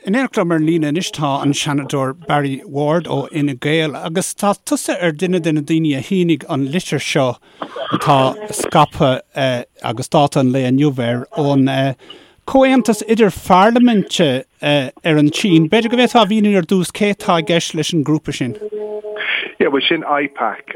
In éineacht liom ar an líne anois tá an Seanadóir Barry Ward ó Fhine Gael agus tá tusa ar duine de na daoine a shínigh an litir seo atá scaipthe agus dáta an lae inniu air ón Comhaontas Idir-Pharlaiminte ar an tSín. B'fhéidir go bhféadfá a mhíniú ar dtús cé atá i gceist leis an ngrúpa sin? Yeah, bhuel sin IPAC.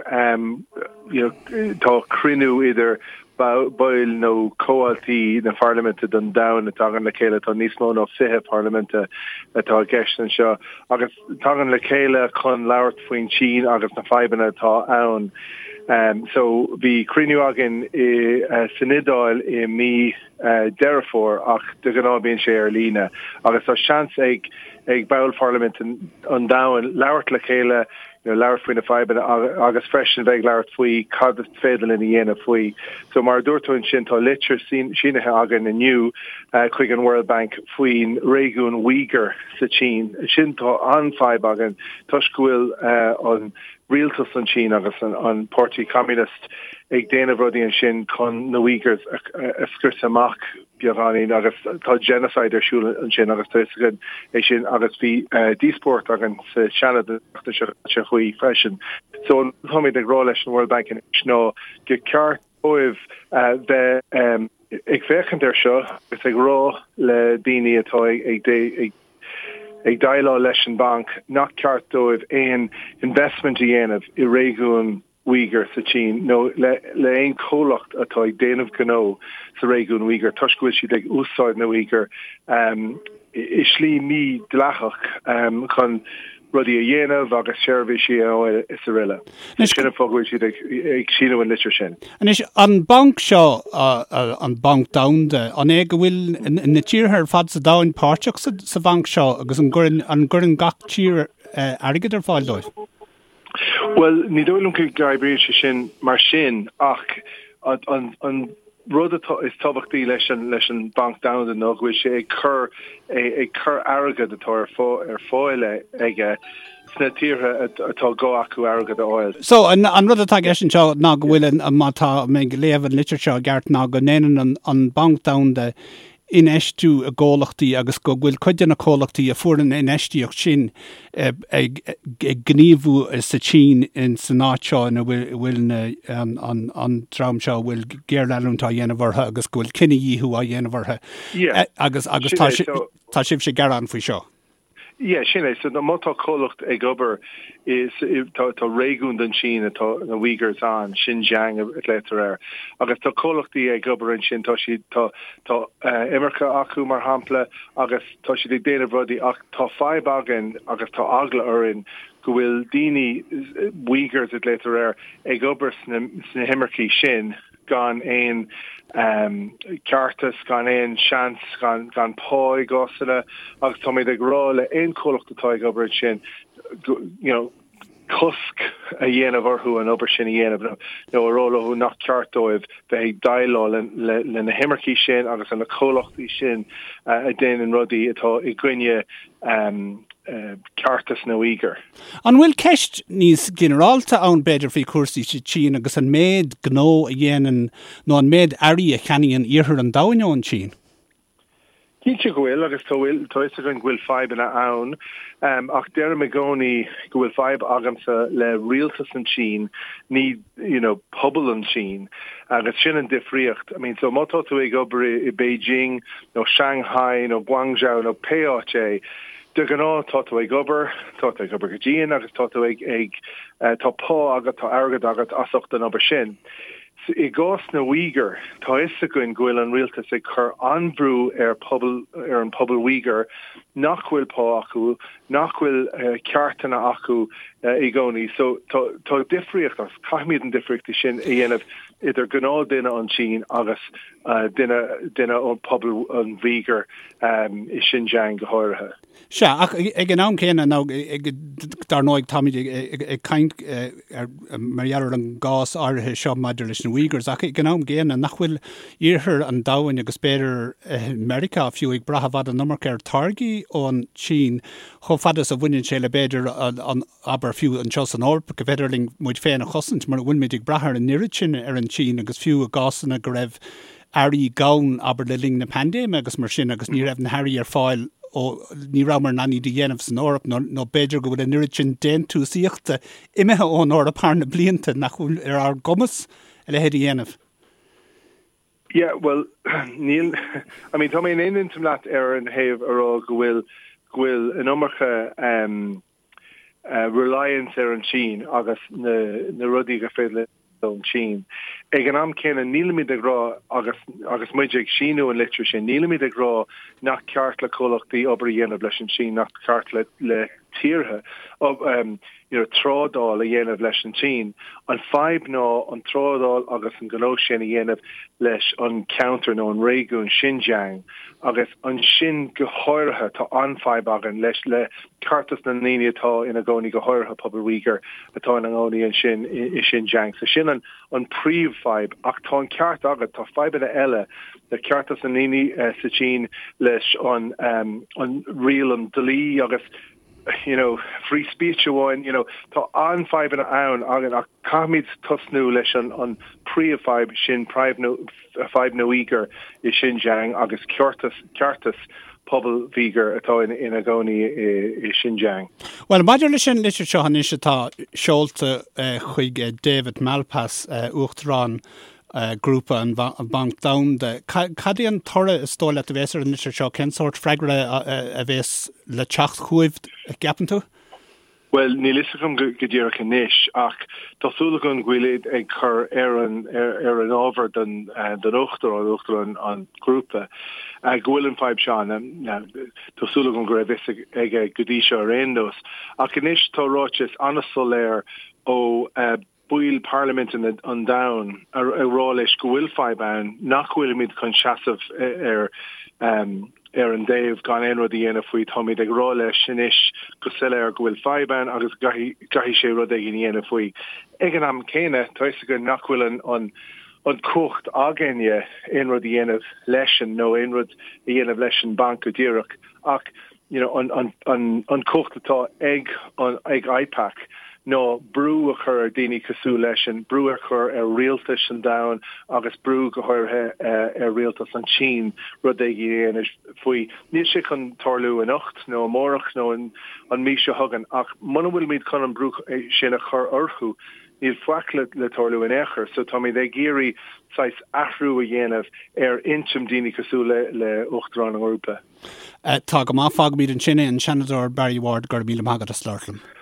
You know, tá cruinniú idir baill nó comhaltaí na Pharlaiminte don domhan a tagann le chéile, tá níos mó ná 20 parlaiminte atá i gceist anseo, agus tagann le chéile chun labhairt faoin tSín agus na fadhbanna atá ann. So bhí cruinniú againn i san Iodáil i mí Deireadh Fómhair ach de ghnáth bíonn sé ar líne agus tá seans ag ag baill Pharlaimint an domhain labhairt le chéile, you know, labhairt faoi na fadhbanna agus freisin bheith ag labhairt faoi cad is féidir linn a dhéanamh faoi. So mar a dúirt tú ansin tá litir sínithe againn inniu chuig an World Bank faoin réigiún Uyghur sa tSín. Sin tá an-fhadhb againn toisc go bhfuil an rialtas an tSín agus an Páirtí Communist ag déanamh rudaí ansin chun na Uyghurs a scriosadh amach beagáinín agus tá genocide ar siúl ansin agus tá fhios againn é sin agus bhí díospóireacht againn sa Seanad an tseachtain seo caite faoi freisin. So an rud atáimid ag rá leis an World Bank anois ná gur ceart dóibh bheith ag féachaint air seo agus ag rá le daoine atá ag ag ag déileáil leis an mbanc nach ceart dóibh aon investment a dhéanamh i réigiún Uyghur sa tSín nó le le aon chomhlacht atá ag déanamh gnó sa réigiún Uyghur toisc go bhfuil siad ag úsáid na Uyghur i slí mídhleathach chun rudaí a dhéanamh agus seirbhísí a fháil is aroile. Sin an fáth go bhfuil siad ag síniú an litir sin. Anois, an banc seo, an Banc Domhanda, an é go bhfuil na tíortha ar fad sa domhan páirteach sa bhanc seo agus an gcuireann gach tír airgead ar fáil dóibh? Bhuel, ní dóigh liom go n-oibríonn sé sin mar sin ach an rud atá is tábhachtaí leis an leis an Banc Domhanda ná go bhfuil sé ag cur ag cur airgead atá ar ar fáil aige sna tíortha atá gá acu airgead a fháil. So, an an rud atá i gceist anseo ná go bhfuil an má tá mé ag léamh an litir seo i gceart ná go ndéanann an an Banc Domhanda infheistiú i gcomhlachtaí agus go bhfuil cuid de na comhlachtaí a fuair an infheistíocht sin ag gníomhú sa tSín san áit seo ina bhfuil an dream seo a bhfuil géarleanúint á dhéanamh orthu agus go bhfuil cinedhíothú á dhéanamh orthu agus agus tá sibhse ag gearán faoi seo. Yeah, sin é. So má tá comhlacht ag obair is tá tá réigiún den tSín atá na Uyghurs ann, Xinjiang a ghlaotar air, agus tá comhlachtaí ag obair ansin, tá siad tá tá imirce acu mar shampla agus tá siad ag déanamh rudaí ach tá fadhb againn agus tá eagla orainn go bhfuil daoine Uyghurs a ghlaotar air ag obair sna sna himircí sin gan aon ceartas, gan aon seans, gan gan pá i gcásanna agus táimid ag rá le aon chomhlacht atá ag obair ansin you know, cosc a dhéanamh orthu an obair sin a dhéanamh nó a rá leo nach ceart dóibh bheith ag déileáil le le na himircí sin agus le na comhlachtaí sin a déanann rudaí atá i gcoinne ceartas na Uyghur. An bhfuil ceist níos ginearálta ann, b'fhéidir, faoi chúrsaí sa tSín agus an méid gnó a dhéanann nó an méid earraí a cheannaíonn iarthar an domhain ón tSín? Cinnte go bhfuil, agus tá a fhios againn go bhfuil fadhbanna ann, ach deirim i gcónaí go bhfuil fadhb agamsa le rialtas an tSín, ní you know pobal an tSín, agus sin an difríocht. I mean, so má tá tú ag obair i Beijing nó Shanghai nó Guangzhou nó pé áit é, de ghnáth tá tú ag obair, tá tú ag obair go dian agus tá tú ag, ag, tá pá agat, tá airgead agat as ucht an obair sin. I gcás na Uyghur, tá a fhios againn go bhfuil an rialtas ag cur an-bhrú ar pobal, ar an pobal Uyghur nach bhfuil pá acu, nach bhfuil ceartanna acu i gcónaí. So tá, tá difríocht agus caithfimid an difríocht sin a dhéanamh idir gnáthduine an tSín agus duine, duine ón pobal an Uyghur i Xinjiang go háirithe. Sea, ach ag an am céanna, nó dar ndóigh táimid ag caint mar gheall ar an gcás áirithe seo maidir leis na Uyghurs, ach ag an am gcéanna, nach bhfuil iarthar an domhain agus b'fhéidir Meiriceá fiú ag brath i bhfad an iomarca ar táirgí ón tSín chomh fada is a bhaineann sé le b'fhéidir an abair fiú anseo san Eoraip go bhféidir linn muid féin a chosaint mura bhfuilimid ag brath ar an oiread sin ar an tSín agus fiú i gcásanna go raibh earraí gann, abair le linn na paindéime agus mar sin agus ní raibh na hearraí ar fáil. ó ní rabhamar in ann iad a dhéanamh san Eoraip nó nó b'fhéidir go bhfuil an oiread sin déantúsaíochta imithe ón Eoraip thar na blianta nach bhfuil ar ár gcumas a leithéid a dhéanamh. Yeah, bhuel, níl, I mean, tá mé in aon intinn leat ar an thaobh a rá go bhfuil, go bhfuil an iomarca um, uh, reliance ar an tSín agus na, na rudaí gur féidir ón tSín. Ag an am céanna, nílimid ag rá, agus, agus muid ag síniú an litir sin, nílimid ag rá nach ceart le comhlachtaí obair a dhéanamh leis an tSín, nach ceart le, le tíortha um, you know, trádáil a dhéanamh leis an tSín. An fadhb ná an trádáil agus an gnó sin a dhéanamh leis an ceantar nó an réigiún Xinjiang agus ansin go háirithe tá an-fhadhb againn leis le ceartas na ndaoine atá ina gcónaí go háirithe pobal Uyghur atá ina gcónaí ansin i Xinjiang. So sin an an príomhfhadhb ach tá an ceart agat tá fadhbanna eile le ceartas na ndaoine sa tSín leis an an riail an dlí agus you know, free speech amháin, you know, tá an-fhadhbanna ann againn ach caithfimid tosnú leis an an príomhfhadhb sin fadhb na Uyghur i Xinjiang agus ceartas ceartas pobal Uyghur atá ina gcónaí i Xinjiang. Bhuel, maidir leis an litir seo anois atá seolta chuig David Malpass, Uachtarán Grúpa an Bhanc Domhanda, cad é an toradh is dóigh leat a bheas ar an litir seo? Cén sórt freagra a bheas le teacht chugaibh, a gceapann tú? Bhuel, níl fhios agam go díreach anois, ach tá súil agam go bhfuilid ag cur ar an ar an ábhar don don Uachtarán, Uachtarán an Ghrúpa, go bhfuil an fadhb seo ann. Tá súil agam go raibh fhios aige go dtí seo ar aon nós. Ach anois tá ráiteas an-soiléir ó baill parlaiminte an domhain ag rá leis go bhfuil fadhb ann, nach bhfuilimid chun seasamh ar ar an dtaobh gan aon rud a dhéanamh faoi. Táimid ag rá leis anois go soiléir go bhfuil fadhb ann agus go gcaithfidh sé rud éigin a dhéanamh faoi. Ag an am céanna, tá fhios againn nach bhfuil an an an cumhacht againne aon rud a dhéanamh leisean nó aon rud a dhéanamh leis an banc go díreach ach you know, an, an, an, an cumhacht atá ag, an, ag IPAC ná brú a chur ar daoine cosúil leisean, brú a chur ar rialtais an domhain agus brú go háirithe ar rialtas an tSín rud éigin a dhéanamh faoi. Níl sé chun tarlú anocht nó amárach nó an, an mí seo chugainn ach muna bhfuilimid chun an brú sin a chur orthu, níl faic le, le tarlú in aon chor. So táimid ag iarraidh saghas athrú a dhéanamh ar intinn daoine cosúil le, le Uachtarán an Ghrúpa. Tá go maith, fágfaimid ansin é, an Seanadóir Barry Ward, go raibh míle maith agat as labhairt liom.